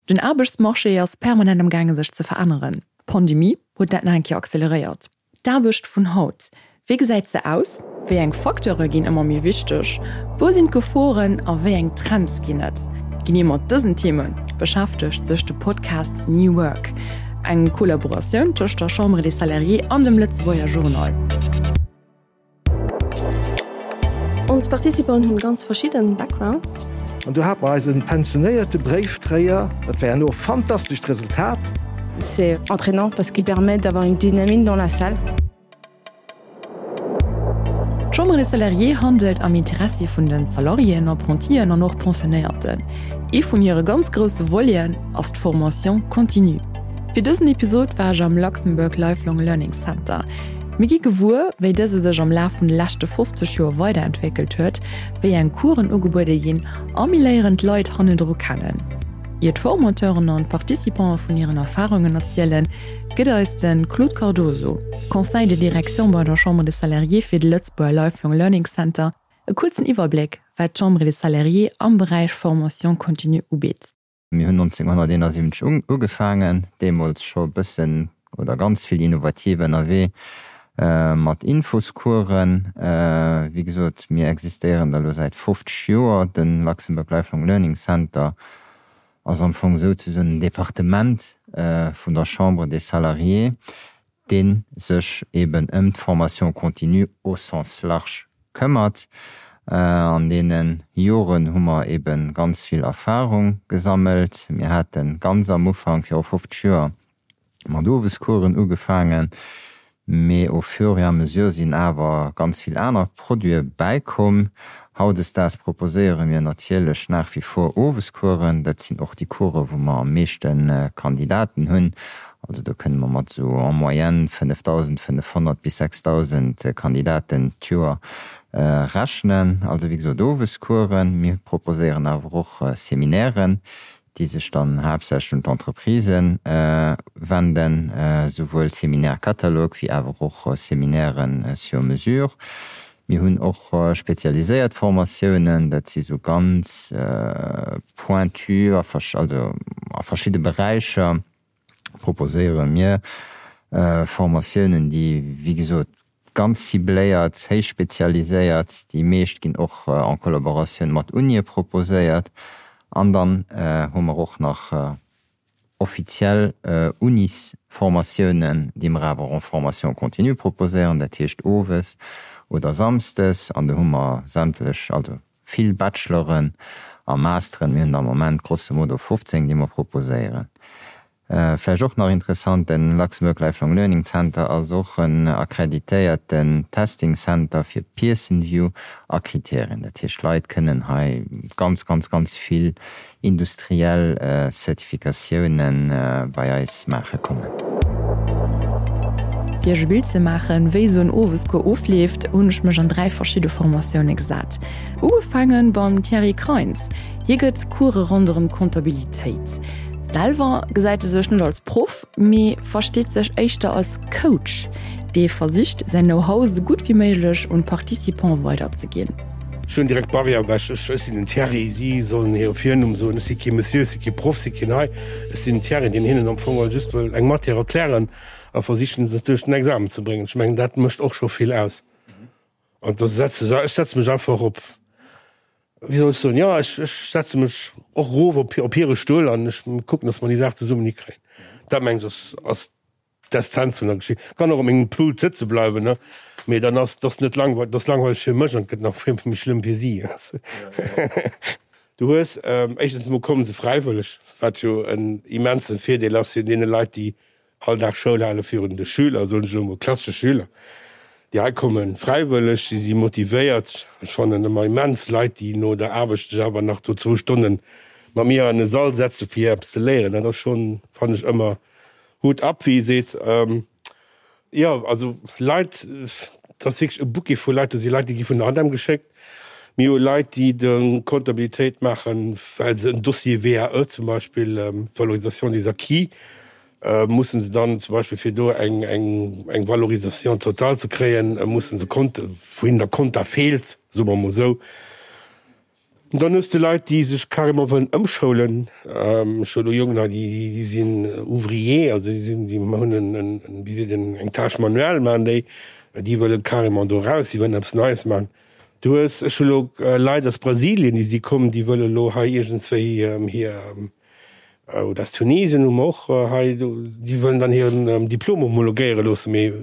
Den Aarbechtsmarché ass permanent am gaange sech ze veränneren. D'Pandemie huet dat nach eng Kéier acceleréiert. D'Aarbecht vun haut, wéi gesäit se aus? Wéi eng Facteure ginn ëmmer méi wichteg? Wou sinn d'Geforen a wéi eng Trends ginn et? Genee mat dësen Theme beschäftegt sech de Podcast New Work, eng Kollaboratioun tëscht der Chambre des Salariés an dem Lëtzebuerger Journal. Ons Participanten hunn ganz verschidden Backgrounds. An do hate mer eise pensionéierte Bréifdréier. Dat war herno e fantastescht Resultat. C'est entraînant parce qu'il permet d'avoir une dynamique dans la salle. D'Chambre des Salariés handelt am Interessi vun de Salariéen, Apprentien an och Pensionéierten. Ee vun hire ganz grousse Voleten ass d'Formation continue. Fir dësen Episod war ech am Luxembourg Lifelong Learning Center. Mir gi gewuer, wéi dëse sech am Laf vun de leschte 50 Joer weiderentwéckelt huet, wéi eng Coursen ugebuede ginn a mir léieren d'Leit hannendru kennen. Ier d'Formateuren an d'Participante vun hiren Erfarungen erzielen, gëtt eis de Claude Cardoso, Conseil de direction bei der Chambre des Salariés fir de Lëtzebuerger Lifelong Learning Center, e kuerzen Iwwerbléck, wat d'Chambre des Salariés am Beräich Formation continue ubitt. Mir hunn 1971 ugefaangen, deemools scho e bëssen oder ganz vill innovativ ënnerwee mat Infoscoursen. Wéi gesot, mir existéieren da lo säit 50 Joer. De Luxembourg Lifelong Learning Center ass am Fong souzesoen en Departement vun der Chambre des Salariés, dee sech eben ëm d'Formation continue au sens large këmmert. An deene Joren hu mer ebe ganz vill Erfahrung gesammelt. Mir hate ganz am Ufank, viru 50 Joer, mat Owescoursen ugefaangen, mee au fur et à mesure sinn awer ganz vill aner Produite bäikomm. Hautdesdaags proposéiere mir natierlech nach wie vor Owescoursen. Dat sinn och déi Coursen, wou mer am meeschte Kandidaten hunn. Also do kënne mer mat esou en moyenne 5.500 bis 6.000 Kandidaten d'Joer rechnen. Also wéi gesot Owescoursen. Mir proposéieren awer och Seminairen, déi sech dann haaptsächlech un d'Entreprisen wenden, souwuel Séminaire-catalogue wéi awer och Séminairen sur mesure. Mir hunn och spezialiséiert Formatiounen, dat si sou ganz pointu a also a verschidde Beräicher proposéiere mir Formatiounen, déi wéi gesot ganz cibléiert, héich spezialiséiert, déi meescht ginn och en Collaboratioun mat Unie proposéiert. An dann hu mer och nach offiziell Unisformatiounen, déi mer awer en formation continue proposéieren, dat heescht owes oder samsdes. An do hu mer sämtlech, also vill Bacheloren a Masteren. Mir hunn der am Moment grosso modo 15, déi mer proposéieren. Vläicht och nach interessant, den Luxembourg Lifelong Learning Center ass och en akkreditéierten Testing Center fir Pearson View a Kriterien. Dat heescht, Leit kënnen hei ganz, ganz, ganz vill industriell Zertifikatiounen bei eis maache kommen. Fir iech e Bild ze maachen, wéi esou en Owescours ofleeft, hunn ech mech an 3 verschidde Formatioune gesat. Ugefaange beim Thierry Kreins. Hie gëtt Course ronderëm d'Comptabilitéit. Selwer gesäit e sech net als Proff, mee versteet sech éischter als Coach, dee versicht, säin Know-how esou gutt wéi méiglech un d'Participants weiderzeginn. Ech hunn direkt d'Barrière ewech. Ech, ech sinn den Thierry, si sollen hire Virnumm soen. Ech si kee Monsieur, ech si kee Proff, si keen hei. Ech sinn den Thierry, deen hinnen am Fong just wëll eng Matière erklären a versichen, se duerch den Examen ze bréngen. Ech mengen, dat mécht och scho vill aus. An da setze se, ech setze mech einfach op, wéi soll ech soen, jo, ech, ech setze mech och erof op, op hire Stull an ech kucken, datt mer déi Saach zesummen hikréien. Dat mengen ech ass, ass d'Essenz vun der Geschicht. Kann och op mengem Pult sëtze bleiwen, ne, mee dann ass, ass net langweileg, ass langweileg fir mech an et gëtt nach vill méi schlëmm fir si. Du hues, éischtens emol komme se fräiwëlleg, wat jo en immense Virdeel ass fir deene Leit, déi All Dag Schoul hale virun de Schüler, soen ech elo mol, klassesche Schüler, déi hei kommen, fräiwëlleg, si si motivéiert. Ech fannen ëmmer immens Leit, déi no der Aarbecht sech awer nach do zwou Stonne mat mir an e Sall setze fir eppes ze léieren. Dat ass schonn, fannen ech ëmmer, Hut ab, wéi ee seet. Jo, also Leit, dat ass wierklech e Bouquet vu Leit. Do si Leit, déi gi vun der ADEM geschéckt. Mir hu Leit, déi de Comptabilitéit maachen, well se en Dossier VAE zum Beispill, Valorisation des acquis, mussen se dann zum Beispill fir do eng eng Valorisation totale ze kréien, mussen se Konte, wou hinnen der Konta feelt, soe mer emol esou. Dann hues de Leit, déi sech carrément wëllen ëmschoulen. Ech hu elo Jongen hei, déi sinn Ouvrier, also déi sinn, déi hunn en, wéi seet een, eng Tâche manuelle maachen déi, déi wëlle carrément do raus, déi wëllen eppes Neies maachen. Du hues, ech hu elo Leit aus Brasilien, déi si komm, déi wëlle elo hei iergendswéi hir, Oder aus Tunesien hu mer och hei, déi wëllen dann hiren Diplom homologéiere loossen, mee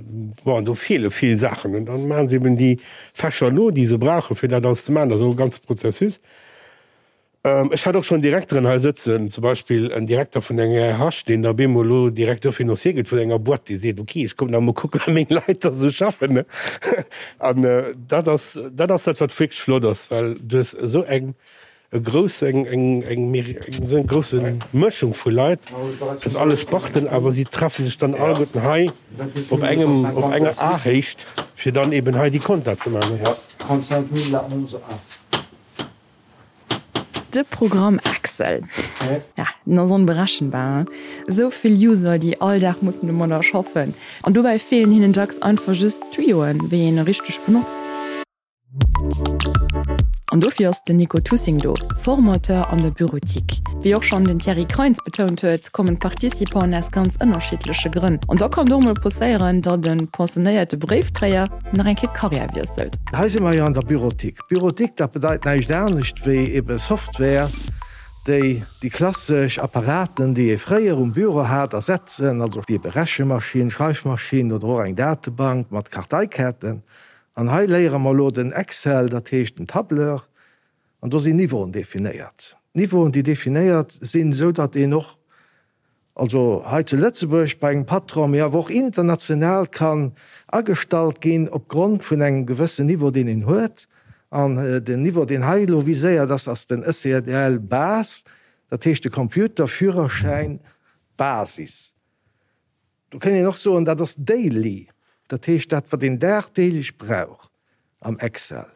bon, do feele vill Saachen. An dann maache se eben déi Fächer no, déi se brauchen, fir dat alles ze maachen. Dat ass och e ganze Prozessus. Ech hat och schonn Direkteren hei sëtzen, zum Beispill en Direkter vun enger RH, deen da op eemol elo Directeur financier gëtt vun enger Boîte, dee seet, ok, ech kommen da mol kucken, wéi meng Leit da sou schaffen. An dat ass, dat ass dat, wat wierklech flott ass, well du hues esou eng e grouss eng eng eng esou eng grousse Mëschung vu Leit aus alle Sparten, awer si treffe sech dann alleguerten hei op engem op enger Ahéicht, fir dann eben hei déi Compta ze maachen. De Programm Excel, ja, den ass onberechenbar, hein. Esou vill User, déi all Dag mussen domadder schaffen, an dobäi feelen hinnen dacks einfach just d'Tuyoen, wéi een e richteg benotzt. An dofir ass den Nico Tussing do, Formateur an der Bureautique. Wéi och schonn den Thierry Kreins betount huet, kommen d'Participanten aus ganz ënnerschiddleche Grënn. An da kann et och mol passéieren, datt e pensionéierte Bréifdréier nach eng Kéier d'Karriär wiesselt. Hei si mer jo an der Bureautique. Bureautique, dat bedeit näischt anescht wéi ebe Software, déi déi klassesch Apparaten, déi ee fréier um Büro hat, ersetzen, also wéi ebe Rechemaschinn, Schreifmaschinn oder och eng Datebank mat Karteikaarten. An hei léiere mer elo den Excel, dat heescht den Tableur, an do sinn Niveauen definéiert. Niveauen, déi definéiert sinn, esou datt een och, also hei zu Lëtzebuerg bei engem Patron, mee awer och international kann agestallt ginn opgrond vun engem gewëssen Niveau, deen een huet. An den Niveau, deen hei elo viséiert ass, ass den ECDL Base, dat heescht de Computerführerschäin Basis. Do kéint een och soen, dat ass daily, dat heescht dat wat een dagdeelech brauch am Excel.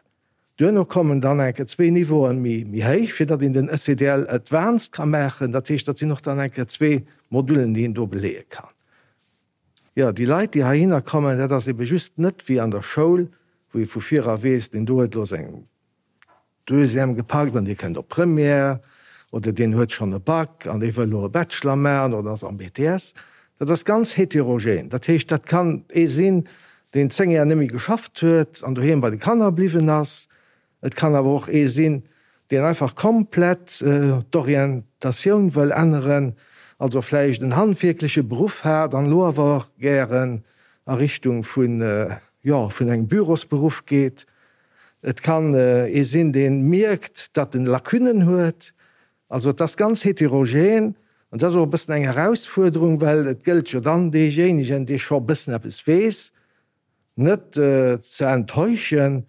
Duerno kommen dann eng Kéier zwee Niveauen méi méi héich, fir datt een den ECDL Advanced ka maachen. Dat heescht, dat sinn och dann eng Kéier zwee Modullen, déi een do beleeë kann. Jo, déi Leit, déi heihinner kommen, dat ass ebe just net wéi an der Schoul, wou ee vu vir era weess, deen do huet elo seng Deuxième gepackt an dee kënnt op Première oder deen huet schonn e Bac an dee wëll elo e Bachelor maachen oder ass am BTS. Dat ass ganz heterogen. Dat heescht, dat kann ee sinn, deen 10 Jar net méi geschafft huet an doheem bei de Kanner bliwwen ass. Et kann awer och ee sinn, deen einfach komplett d'Orientatioun wëll änneren, also vläicht en handwierkleche Beruff hat an elo awer gären a Richtung vun, jo, vun engem Bürosberuff geet. Et kann ee sinn, dee mierkt, datt en Lacunnen huet. Also et ass ganz heterogen an dat ass och e bëssen eng Erausfuerderung, well et gëllt jo dann deejéinegen, dee scho e bëssen eppes weess, net ze enttäuschen,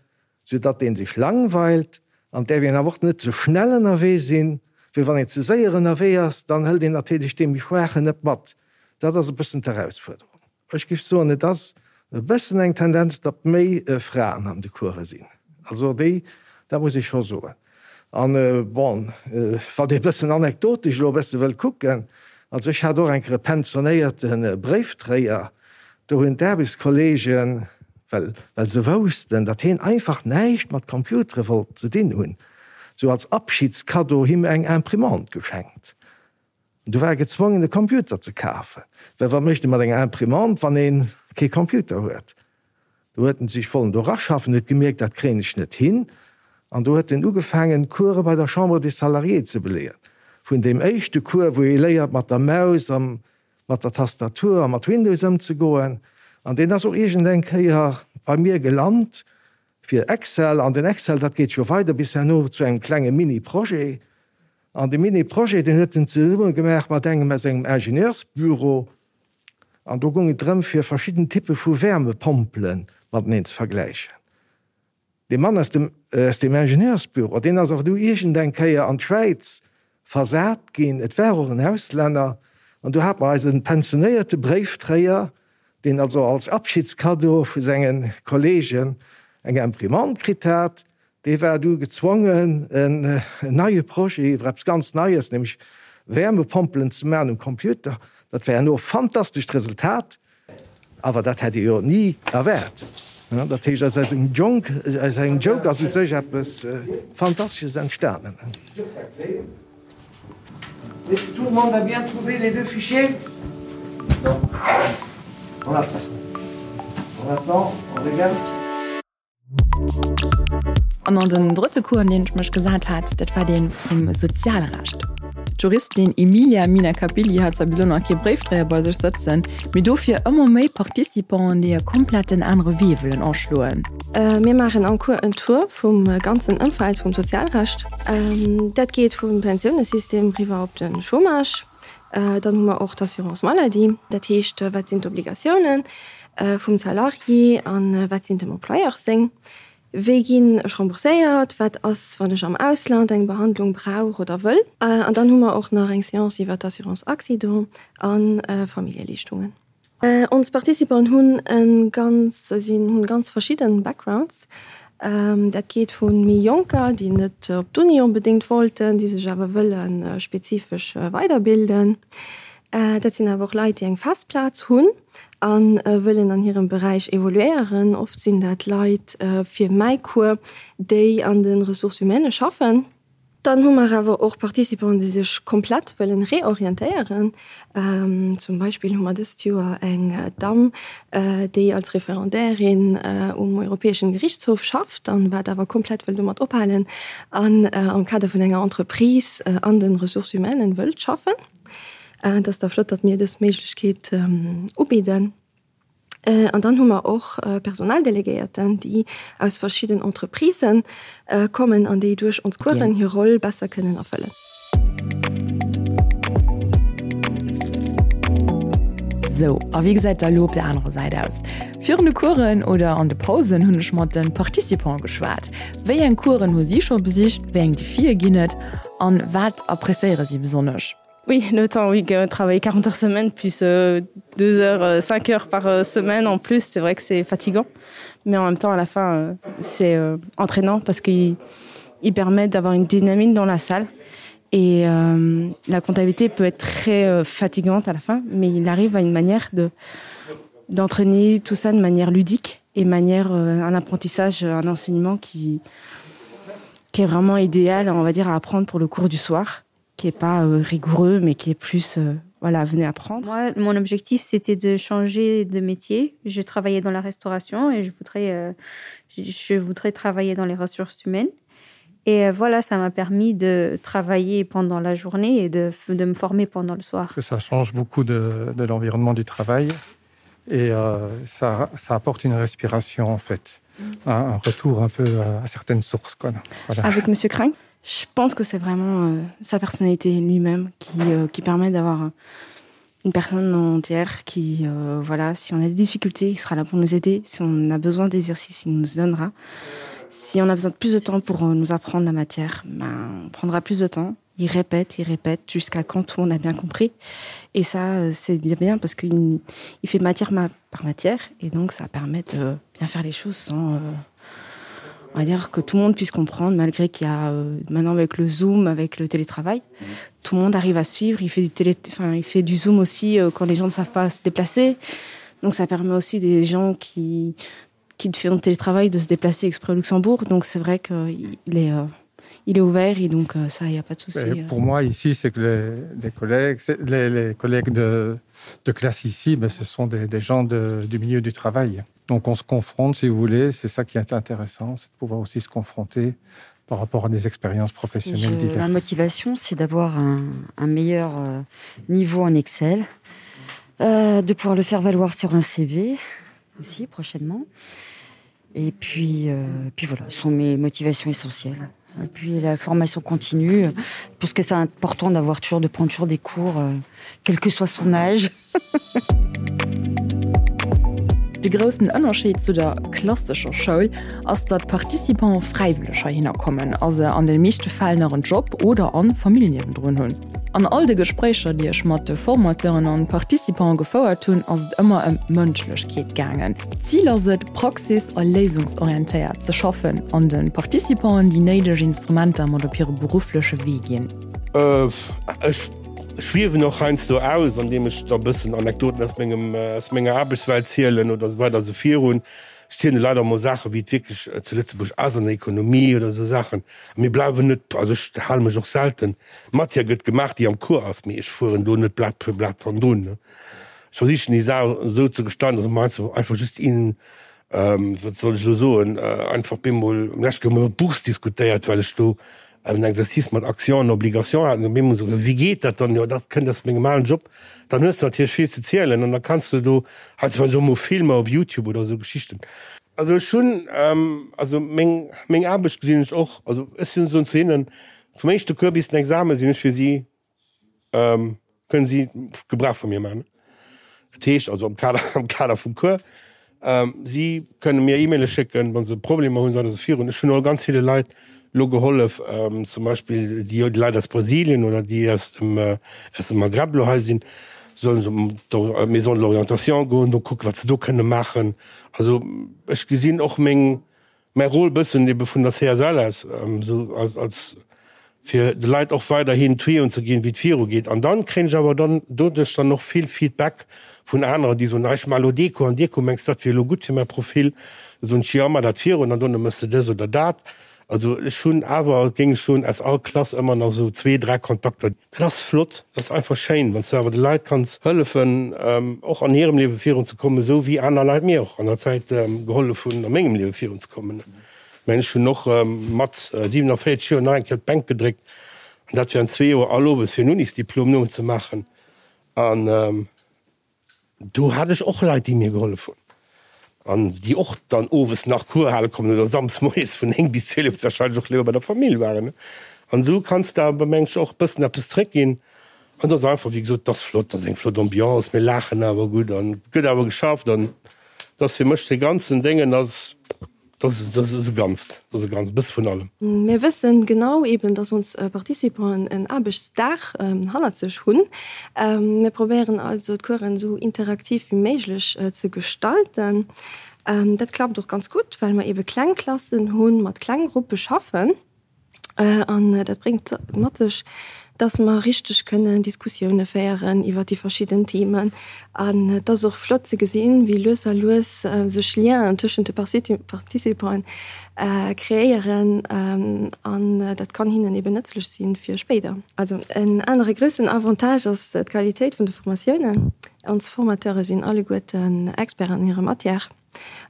soudatt dee sech langweilt. An et däerf een awer och net ze schnell ënnerwee sinn, well wann een ze séier ënnerwee ass, dann hëlt een natierlech dee méi Schwaachen net mat. Dat ass e bëssen d'Erausfuerderung. Ech géif soen, et ass e bëssen eng Tendenz, datt méi Fraen an de Course sinn. Also déi, dat muss ech scho soen. An bon, wann ee bëssen anekdotesch elo e bësse wëll kucken, also ech hat och eng Kéier e pensionéierte Bréifdréier, do hunn d'Aarbechtskolleegen, well well se woussten, datt heen einfach näischt mat Computere wollt ze dinn hunn, sou als Abschiedskaddo him eng Imprimante geschenkt. Du war e gezwongen e Computer ze kafen, well wat mécht ee mat enger Imprimante, wann ee kee Computer huet? Do huet en sech wollen do raschaffen, huet gemierkt, dat kréien ech net hin, an do huet en ugefaangen Course bei der Chambre des Salariés ze beleeën. Vun deem éischte Cours, wou ee léiert mat der Maus a mat der Tastatur a mat Windows ëmzegoen, an deen ass och iergend eng Kéier bei mir gelant fir Excel, an den Excel, dat geet jo weider bis herno zu engem klenge Mini-Projet. An dee Mini-Projet, deen huet en zesumme gemaach mat engem aus engem Ingenieursbüro. An do goung et drëm, fir verschidden Typpe vu Wärmepompele mateneen ze vergläichen. Dee Mann aus dem, aus deem Ingenieursbüro, deen ass awer du iergendeng Kéier an d'Schwäiz versat ginn. Et war och en Auslänner. An du hat mer eise pensionéierte Bréiftréier, deen also als Abschiedskaddo vu senge Kollegen eng Imprimante kritt hat, Dee war du gezwongen, en neie Projet iwwer eppes ganz Neies, nämlech Wärmepompelen ze maachen um Computer. Dat war herno e fantastescht Resultat, awer dat hätt ee jo ni erwaart. Dat heescht, aus engem Jonk, aus engem Joke ass u sech eppes Fantastesches entstanen. Est-ce que tout le monde a bien trouvé les deux fichiers? Non. On attend. On attend, on regarde. An an den drëtte Cours, an deen ech mech gesat hat, dat war dee vum Sozialrecht. D'Juristin Emilia Minacapilli hat zwar bis elo nach kee Bréifdréier bei sech sëtzen, mee dofir ëmmer méi Participanten, déi e kompletten anere Wee wëllen aschloen. Mir maachen am Cours en Tour vum ganzen Ëmfeld vum Sozialrecht. Dat geet vum Pensiounesystem riwwer op de Chômage. Dann hu mer och d'Assurance maladie, dat heescht, wat sinn d'Obligatiounen vum Salarié a wat sinn dem Employeur seng? Wéi ginn ech rembourséiert? Wat ass, wann ech am Ausland eng Behandlung brauch oder wëll? An dann hu mer och nach eng Seance iwwer d'Assurance accident a Familljeleeschtungen. Ons Participanten hunn e ganz sinn hunn ganz verschidden Backgrounds. Dat geet vu méi Jonker, déi net op d'Uni onbedéngt wollten, déi sech awer wëlle spezifesch weiderbilden. Dat sinn awer och Leit, déi eng fest Plaz hunn a wëllen an hirem Beräich evoluéieren. Oft sinn dat Leit fir mäi Cours, déi an de Ressources humaines schaffen. Dann hu mer awer och Participanten, déi sech komplett wëllen reorientéieren. Zum Beispill hu mer dëst Joer eng Damm, déi als Referendairin um Europäeschen Gerichtshof schafft an wat awer komplett wëll domat ophalen an am Kader vun enger Entreprise an den Ressources humaines wëllt schaffen. Et ass da flott, datt mir dës Méiglechkeet ubidden. An dann hu mer och Personaldelegéierten, déi aus verschidden Entreprisë kommen an déi duerch ons Coursen hir Roll besser kënnen erfëllen. Sou, a wéi gesäit da elo op der anerer Säit aus? Virun de Coursen oder an de Pausen hunn ech mat de Participante geschwat. Wéi eng Coursen hu si scho besicht, wéi eng Defie ginn et an wat appréciéiere si besonnesch? Oui, le temps oui, travailler 40 heures semaine plus euh, 2 heures 5 euh, heures par euh, semaine en plus, c'est vrai que c'est fatigant. Mais en même temps à la fin euh, c'est euh, entraînant parce qu'il il permet d'avoir une dynamique dans la salle. Et euh, la comptabilité peut être très euh, fatigante à la fin, mais il arrive à une manière de d'entraîner tout ça de manière ludique et manière euh, un apprentissage, un enseignement qui, qui est vraiment idéal on va dire à apprendre pour le cours du soir qui est pas euh, rigoureux mais qui est plus euh, voilà venez apprendre moi mon objectif c'était de changer de métier je travaillais dans la restauration et je voudrais euh, je, je voudrais travailler dans les ressources humaines et euh, voilà ça m'a permis de travailler pendant la journée et de, de me former pendant le soir que ça change beaucoup de, de l'environnement du travail et euh, ça, ça apporte une respiration en fait un, un retour un peu à, à certaines sources quoi voilà. avec monsieur crain je pense que c'est vraiment euh, sa personnalité lui-même qui, euh, qui permet d'avoir euh, une personne entière qui euh, voilà si on a des difficultés il sera là pour nous aider si on a besoin d'exercices il nous donnera si on a besoin de plus de temps pour euh, nous apprendre la matière ben, on prendra plus de temps il répète il répète jusqu'à quand tout on a bien compris et ça euh, c'est bien bien parce qu'il il fait matière ma par matière et donc ça permet de bien faire les choses sans euh, on va dire que tout le monde puisse comprendre malgré qu'il y a euh, maintenant avec le zoom avec le télétravail mmh. tout le monde arrive à suivre il fait du télé enfin il fait du zoom aussi euh, quand les gens ne savent pas se déplacer donc ça permet aussi des gens qui qui font télétravail de se déplacer exprès au luxembourg donc c'est vrai qu'il est euh, il est ouvert et donc euh, ça il n'y a pas de souci euh. pour moi ici c'est que les, les collègues les, les collègues de, de classe ici ben, ce sont des, des gens de, du milieu du travail donc on se confronte si vous voulez c'est ça qui est intéressant c'est de pouvoir aussi se confronter par rapport à des expériences professionnelles Je, ma motivation c'est d'avoir un, un meilleur euh, niveau en excel euh, de pouvoir le faire valoir sur un cv aussi prochainement et puis euh, puis voilà ce sont mes motivations essentielles et puis la formation continue parce que c'est important d'avoir toujours de prendre toujours des cours euh, quel que soit son âge De groussen Ënnerscheed zu der klassescher Schoul ass, datt d'Participante fräiwëlleg heihinner kommen a se an de meeschte Fäll nach en Job oder an Famill niewendrun hunn. An all de Gespréicher, déi ech mat de Formateuren an Participante gefouert hunn, ass et ëmmer ëm Mënschlechkeet gaangen. D'Zil ass et, praxis a léisungsorientéiert ze schaffen an de Participanten déi néideg Instrumenter mat op hire beruffleche Wee ginn. Ech schwiewen och heiansdo aus, andeem ech da bëssen Anekdoten aus mengem, aus menger Aarbechtswelt zielen oder esou weider esou virun. Ech zielen de Leit och emol Saachen, wéi et wierklech zu Lëtzebuerg ass an der Ekonomie oder esou Saachen. A mir bleiwen net, also ech hale mech och selten, Matière gëtt gemaach, déi am Cours ass, mee ech fueren do net Blat fir Blat hannendrun. Ech versichen déi Saach esou ze gestalten, dass mer einfach just een, wat soll ech elo soen, einfach bemol, lech hu mer iwwer d'Bourse diskutéiert, well ech do en Exercice mat Action an Obligation hat, an op eemol esou, wéi geet dat dann, jo dat kënnt aus mengem alen Job, dann hues de natierlech vill ze zielen an da kanns de do heiansdo och mol Filmer op Youtube oder esou Geschichten. Also ech hunn, also meng, meng Aarbecht gesinn ech och, also ech sinn, soen zu hinnen, vum éischte Cours bis den Examen sinn ech fir si Kënnen si Gebrauch vu mir maachen. Dat heescht also am Kader, am Kader vum Cours. Si kënne mir E-Maile schécken, wa se Problemer hunn, se virun. Ech hunn och ganz ville Leit elo gehollef, zum Beispill déi Leit aus Brasilien oder déi aus dem, aus dem Maghreb elo hei sinn, sollen se op d'Maison de l'orientation goen, do kucken, wat se do kënne maachen. Also ech gesinn och meng, Mäi Rôle bëssen ebe vun der CSL aus, esou als, als fir de Leit och weiderhin Tuyauxen ze ginn, wéi et viru geet. An dann kréien ech awer dann doduerch dann och vill Feedback vun aneren, déi soen, ah ech maache lo dee Cours an dee Cours, mengs du dat wier elo gutt fir mäi Profil? Da soen ech, jo, maach dat virun an dono méchs de dës oder dat. Also ech hunn awer, géing ech soen, aus all Klass ëmmer nach esou zwee, dräi Kontakter. Dat ass flott, dat ass einfach schéin, wann s du awer de Leit kanns hëllefen, och an hirem Liewe virunzekommen, esou wéi aner Leit mir och an der Zäit gehollef hunn, a mengem Liewe virunzekommen. Ech mengen, ech hunn och mat 47 Joer nach eng Kéier d'Bänk gedréckt, an dat während zwee Joer all owes, fir en Unisdiplom nozemaachen. An Do hat ech och Leit, déi mir gehollef hunn an déi och dann owes nach Cours hale kommen oder samsdes moies vun 9 bis 12 wahrscheinlech och léiwer bei der Famill waren. An esou kanns de awer, meng ech, och e bëssen eppes zréckginn. An et ass einfach, wéi gesot, et ass flott, et ass eng flott Ambiance, mir laachen awer gutt an et gëtt awer geschafft an et ass fir mech dee ganzen Déngen ass, Dat ass e Ganzt, dat ass e Ganzt, e bësse vun allem. Mir wëssen genau eben, dass ons Participanten en Aarbechtsdag hannert sech hunn. Mir probéieren also d'Coursen esou interaktiv wéi méiglech ze gestalten. Dat klappt och ganz gutt, well mer ebe kleng Klassen hunn, mat kleng Gruppe schaffen. An dat bréngt mat sech, dass mer richteg kënnen Diskussioune féieren iwwer déi verschidden Themen. An et ass och flott ze gesinn, wéi lues a lues sech Lienen tëschent de Participanten kreéieren. An dat kann hinnen eben nëtzlech si fir spéider. Also en anere groussen Avantage ass d'Qualitéit vun de Formatiounen. Ons Formateure sinn alleguerten Experten an hirer Matière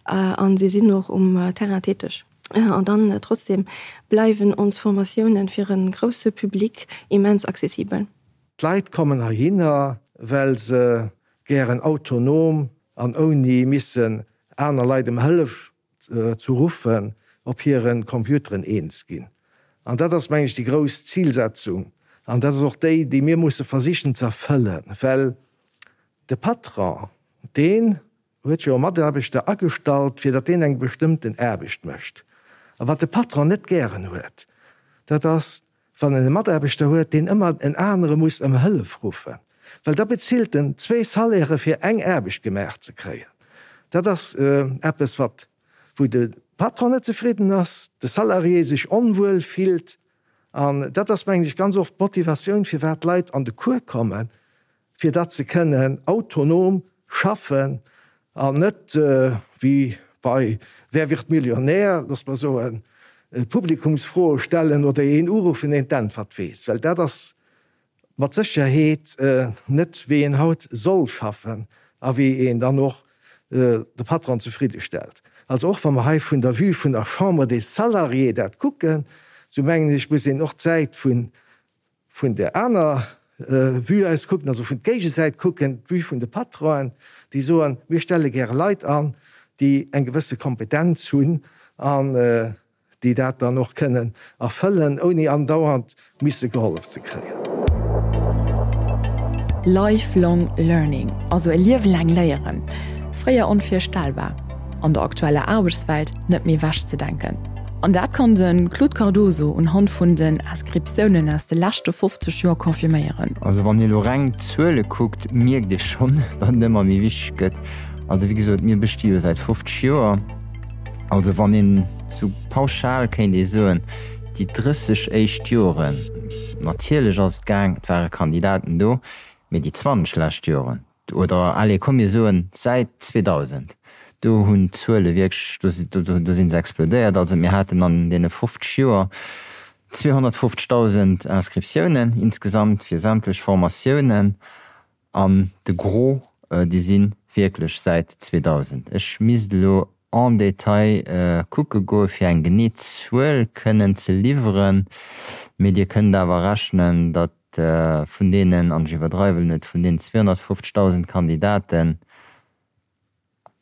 a si sinn och um Terrain täteg. An dann trotzdem bleiwen ons Formatiounen fir e grousse Public immens accessibel. D'Leit kommen heihinner, well se gären autonom an ouni missen aner Leit ëm Hëllef ze ruffen, op hire Computeren eens ginn. An dat ass, meng ech, déi grouss Zilsetzung. An dat ass och déi, déi mir musse versichen ze erfëllen, well de Patron, deen huet jo e Mataarbechter agestallt, fir datt deen eng bestëmmten Aarbecht mécht. A wat de Patron net gären huet, dat ass, wann en e Mataarbechter huet, deen ëmmer en anere muss ëm Hëllef ruffen, well da bezilt en zwee Salairë fir eng Aarbecht gemaach ze kréien. Dat ass eppes, wat, wou de Patron net zefridden ass, de Salarié sech onwuel fillt. An dat ass, mengen ech, ganz oft d'Motivatioun, firwat d'Leit an de Cours kommen, fir datt se kënnen autonom schaffen an net wéi bei Wer wird Millionär, looss mer soen, Publikumsfroe stellen oder een uruffen, deen d'Äntwert weess, well dat ass mat Sécherheet net wéi een haut soll schaffen a wéi een dann och de Patron zefridde stellt. Also och wa mer hei vun der Vue vun der Chambre des Salariés dat kucken, esou mengen ech, muss een och d'Säit vun vun där aner Vue aus kucken, also vun d'Géigesäit kucken, d'Vue vun de Patronen, déi soen, mir stelle gäre Leit an, déi eng gewësse Kompetenz hunn an déi dat dann och kënnen erfëllen, ouni andauernd misse gehollef ze kréien. Lifelong learning, also e Liewe laang léieren, fréier onvirstellbar, an der aktueller Aarbechtswelt net méi ewechzedenken. An dat kann de Claude Cardoso unhand vun den Inscriptiounen aus de leschte 50 Joer confirméieren. Also wann ee lo reng d'Zuele kuckt, mierkt ee schonn, datt et ëmmer méi wichteg gëtt. Also wéi gesot, mir besti jo säit 50 Joer. Also wann een esou pauschal kéint ee soen, déi 30 éischt Joren, natierlech ass et gaang, et ware Kandidaten do, mee déi 20 lescht Joren, oder allez komm mir soen säit 2000, Do hunn d'Zuele wierklech, do si se explodéiert. Also mir haten an deene 50 Joer 250.000 Inscriptiounen insgesamt fir sämtlech Formatiounen. An de Gros, déi si wierklech säit 2000. Ech misst elo en détail kucke goe fir eng genee Zuel kënnen ze liwweren, mee Dir kënnt awer rechnen, datt vun deenen, an ech iwwerdreiwen net, vun deenen 250.000 Kandidaten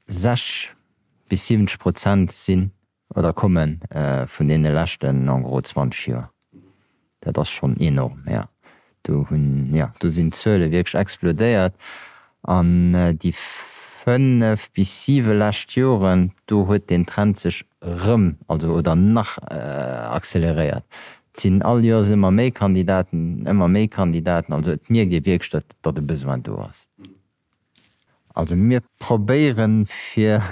60 bis 70 Prozent sinn oder komme vun deene leschten en gros 20 Joer. Dat ass schonn enorm, jo. Do hunn, jo, do sinn d'Zuele wierklech explodéiert. An déi fënnef bis siwe lescht Joren, do huet deen Trend sech erëm, also oder nach acceleréiert. Et sinn all Joers ëmmer méi Kandidaten, ëmmer méi Kandidaten. Also et mierkt ee wierklech, datt, datt e Besoin do ass. Also mir probéieren fir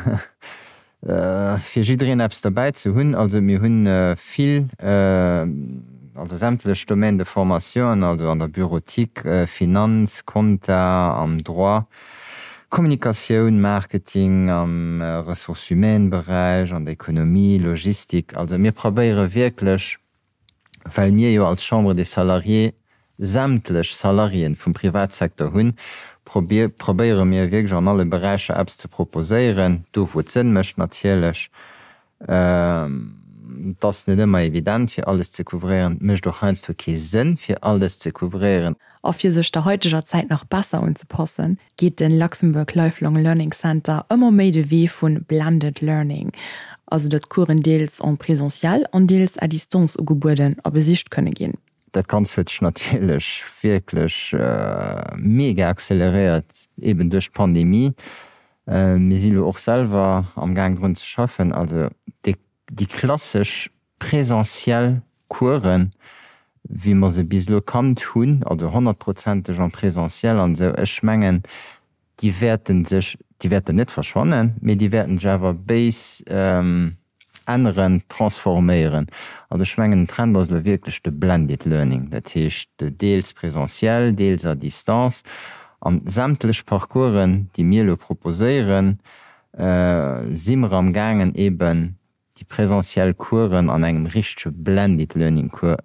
fir jiddereen eppes derbäi ze hunn. Also mir hunn vill, also sämtlech Domaines de formation, also an der Bureautique, Finanz, Compta, am Droit, Kommunikatioun, Marketing, am Ressources humaines Beräich, an der Economie, Logistik. Also mir probéiere wierklech well mir jo als Chambre des Salariés sämtlech Salariéen vum Privatsecteur hunn, probéiere mir wierklech an alle Beräicher eppes ze proposéieren, do wou et Sënn mécht natierlech. Et ass net ëmmer evident fir alles ze couvréieren, et mécht och heiansdo kee Sënn fir alles ze couvréieren. A fir sech der haiteger Zäit nach besser unzepassen, geet de Luxembourg Lifelong Learning Center ëmmer méi de Wee vu Blended Learning, also datt Coursen deels en présentiel an deels à distance ugebueden a besicht kënne ginn. Dat Ganzt huet sech natierlech wierklech mega acceleréiert, eben duerch d'Pandemie. Mir si lo och selwer am Gaang drun ze schaffen. Also déi klassesch Présentiel Coursen, wéi mer se bis elo kannt hunn, also honnertprozenteg en présentiel an esou, ech mengen, déi wäerte sech, déi wäerten net verschwannen, mee déi wäerten sech awer béis änneren, transforméieren. Also ech mengen, den Trend ass elo wierklech de blended learning, dat heescht deels présentiel, deels à distance. An sämtlech Parcoursen, déi mir elo proposéieren, si mer amgaangen eeben déi presentiell Coursen an engem richtege Blended Learning Cours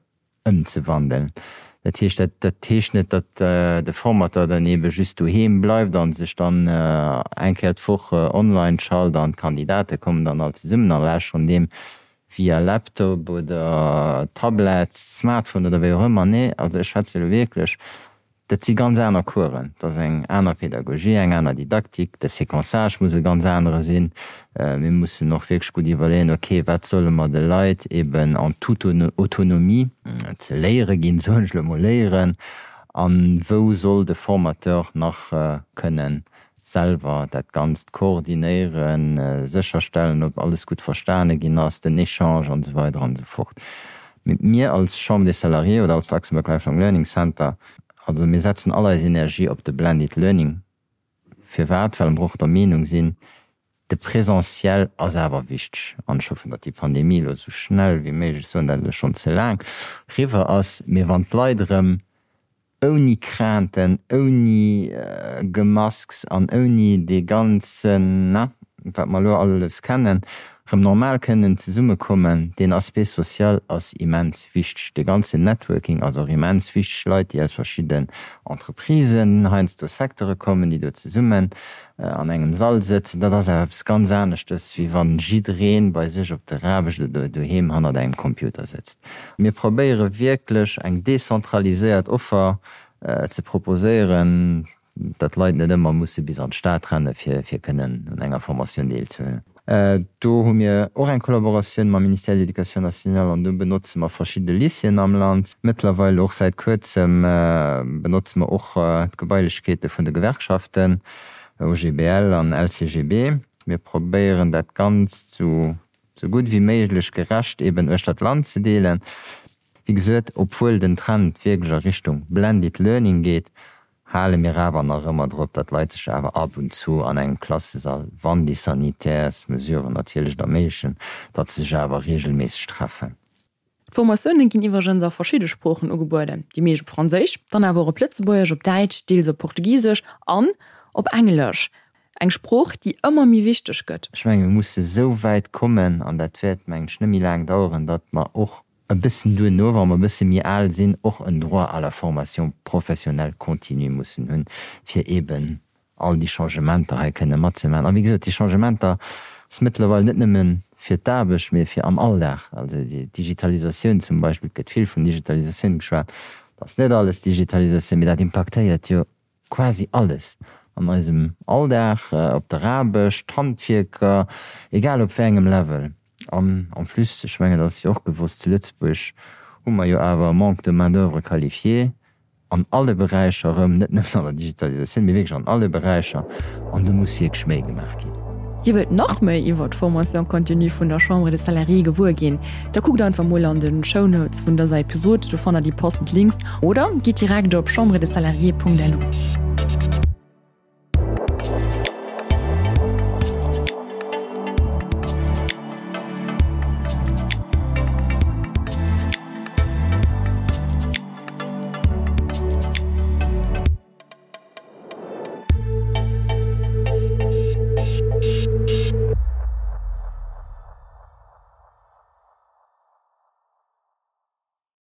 ëmzewandeln. Dat heescht, dat dat heescht net, datt de Formateur dann eebe just doheem bleift a sech dann eng Kéier d'Woch online schalt an d'Kandidate kommen dann all zesummen a lauschteren deem via Laptop oder Tablett, Smartphone oder wéi och ëmmer. Nee, also ech schwätze elo wierklech Dat si ganz aner Coursen, dat ass eng aner Pedagogie, eng aner Didaktik, de Séquençage muss e ganz anere sinn. Mir mussen och wierklech gutt iwwerleeën, okay, wat solle mer de Leit eben en toute autonomie ze léiere ginn, soen ech elo emol léieren, a wou soll de Formateur nach kënnen selwer dat Ganzt koordinéieren, sécherstellen, ob alles gutt verstane ginn ass, den Echange an esou weider an esou fort. Mee mir als Chambre des Salariés oder als Luxembourg Lifelong Learning Center, also mir setzen all eis Energie op de Blended Learning. Firwat? Well mer och der Meenung sinn, de Présentiel ass awer wichteg. An ech hoffen, datt déi Pandemie elo esou schnell wéi méiglech, ech soen dat elo schonn ze laang, riwwer ass. Mee wann d'Leit erëm ouni Crainten, ouni Gemasks an ouni dee ganzen, na, wat mer elo alles kennen, erëm normal kënnen zesummekommen. Deen Aspect social ass immens wichteg. Dee ganzen Networking ass och immens wichteg. Leit, déi aus verschidden Entreprisen, heiansdo Secteure kommen, déi do zesummen an engem Sall sëtzen, dat ass awer eppes ganz aneschtes, wéi wann jidderee bei sech op der Aarbecht oder doheem hannert engem Computer sëtzt. Mir probéiere wierklech eng dezentraliséiert Offer ze proposéieren, datt d'Leit net ëmmer musse bis an d'Stad renne fir kënnen un enger Formatioun deelzehuelen. Do hu mir och eng Kollaboratioun mam Ministère de l'Éducation nationale an do benotze mer verschidde Lycéeën am Land. Mëttlerweil och säit kuerzem benotze mer och d'Gebailechkeete vun de Gewerkschaften, OGBL an LCGB. Mir probéieren dat Ganzt sou gutt wéi méiglech gerecht eben uechter d'Land ze deelen. Wéi gesot, obwuel den Trend wierklech a Richtung Blended Learning geet, hale mir awer nach ëmmer drop, datt d'Leit sech awer ab und zu an engem Klassesall, wann déi Sanitärsmesuren natierlech et erméiglechen, datt se sech awer reegelméisseg treffen. D'Formatioune ginn iwwregens a verschidde Sproochen ugebueden, déi meescht op Franséisch, dann awer och op Lëtzebuergesch, op Däitsch, deels op Portugisesch an op Englesch. Eng Sprooch, déi ëmmer méi wichteg gëtt. Ech menge mir musse sou wäit kommen, an dat wäert, mengen ech, net méi laang daueren, datt mer och e bëssen duerno, wa mer e bësse méi al sinn, och en Droit à la formation professionnelle continue mussen hunn, fir eeben all déi Changementer hei kënne matzemaachen. A wéi gesot, déi Changementer ass mëttlerweil net nëmme fir d'Aarbecht, mee fir am Alldag. Also déi Digitalisatioun zum Beispill, et gëtt vill vun Digitalisatioun geschwat, et ass net alles Digitalisatioun, mee dat impaktéiert jo quasi alles an eisem Alldag, op der Aarbecht, d'Handwierker, egal op wéi engem Level. An en plus, ech mengen, dat ass jo och gewosst, zu Lëtzebuerg hu mer jo awer e Manque de main-d'oeuvre qualifiée an alle Beräicher erëm, net nëmmen an der Digitalisatioun, mee wierklech an alle Beräicher. An do muss wierklech méi gemaach ginn. Dir wëllt nach méi iwwer d'Formation continue vun der Chambre des Salariés gewuer ginn? Da kuckt einfach mol an de Shownotes vun dëser Episod, do fannt der déi passend Links oder gitt direkt op chambredessalariés.lu.